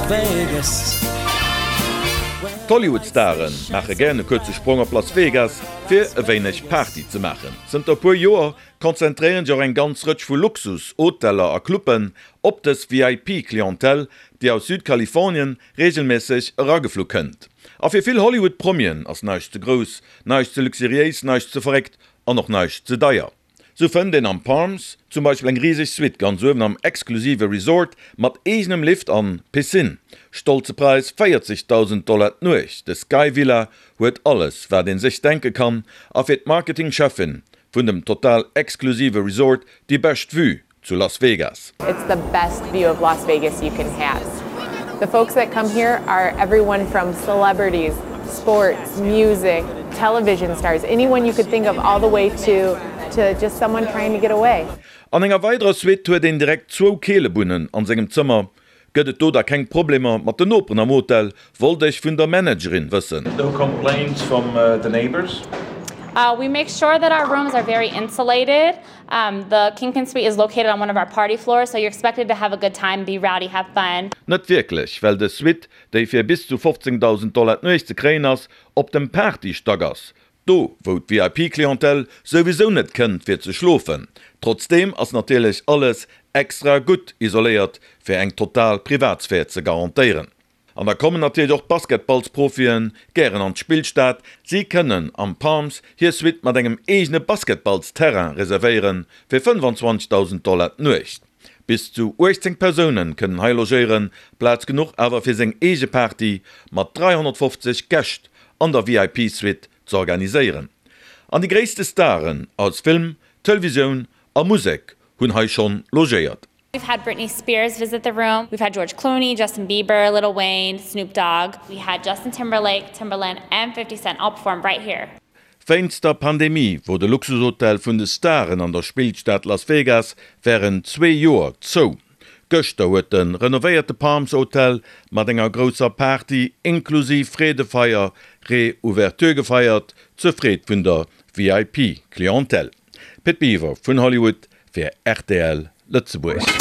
Las Vegas. D'Hollywood-Stare maache gären e kuerze Sprong op Las Vegas, fir e wéineg Party ze maachen. Zënter e puer Joer konzentréieren sech och eng ganz Rëtsch vu Luxus-Hoteller a Cluben op dës VIP-Clientèle, déi aus Südkalifornien reegelméisseg erageflu kënnt. A fir vill Hollywood-Promien ass näischt ze grouss, näischt ze luxuriéis, näischt ze verréckt an och näischt ze deier. Sou fënnt een am Palms zum Beispill eng riseg Suite ganz uewen am exklusive Resort mat eegenem Lift an Piscine. Stolze Präis, 40.000 Dollar d'Nuecht. De Sky Villa huet alles wat een sech denke kann a fir d'Marketing-Cheffin vun dem total exklusive Resort déi bescht Vue zu Las Vegas. It's the best view of Las Vegas you can have. The folks that come here are everyone from celebrities, sports, music, television stars, anyone you could think of all the way to to just someone trying to get away. An enger weiderer Suite huet een direkt zwou Keelebunnen an sengem Zëmmer. Gëtt et do da keng Problemer mat den Noperen am Hotel, wollt ech vun der Managerin wëssen. No complaints from the neighbors? We make sure that our rooms are very insulated. The Kingpin Suite is located on one of our party floors, so you're expected to have a good time, be rowdy, have fun. Net wierklech, well des Suite, déi fir bis zu 15.000 Dollar d'Nuecht ze kréien ass, op dem Party-Stack ass, do wou d'VIP-Clientèle souwisou net kënnt fir ze schlofen. Trotzdeem ass natierlech alles extra gutt isoléiert fir eng total Privatsphär ze garantéieren. An da kommen natierlech och d'Basketballsprofien gären an d'Spillstad. Si kënnen am Palms hir Suite mat engem eegene Basketballsterrain reservéieren, fir 25.000 Dollar d'Nuecht. Bis zu 18 Persoune kënnen hei logéieren, Plaz genuch awer fir seng eege Party mat 350 Gäscht an der VIP-Suite z'organiséieren. An déi gréisste Staren aus Film, Televisioun a Musek hunn hei schonn logéiert. We've had Britney Spears visit the room, we've had George Clooney, Justin Bieber, Lil Wayne, Snoop Dogg, we had Justin Timberlake, Timbaland and 50 Cent all perform right here. Wéinst der Pandemie wor de Luxushotel vun de Staren an der Spillstad Las Vegas wärend zwee Joer zou. Gëschter huet de renovéierte Palms Hotel mat enger grousser Party inklusiv Freedefeier Reouverture gefeiert, zur Freed vun der VIP-Clientèle. Pit Biwer vun Hollywood fir rtl Lëtzebuerg.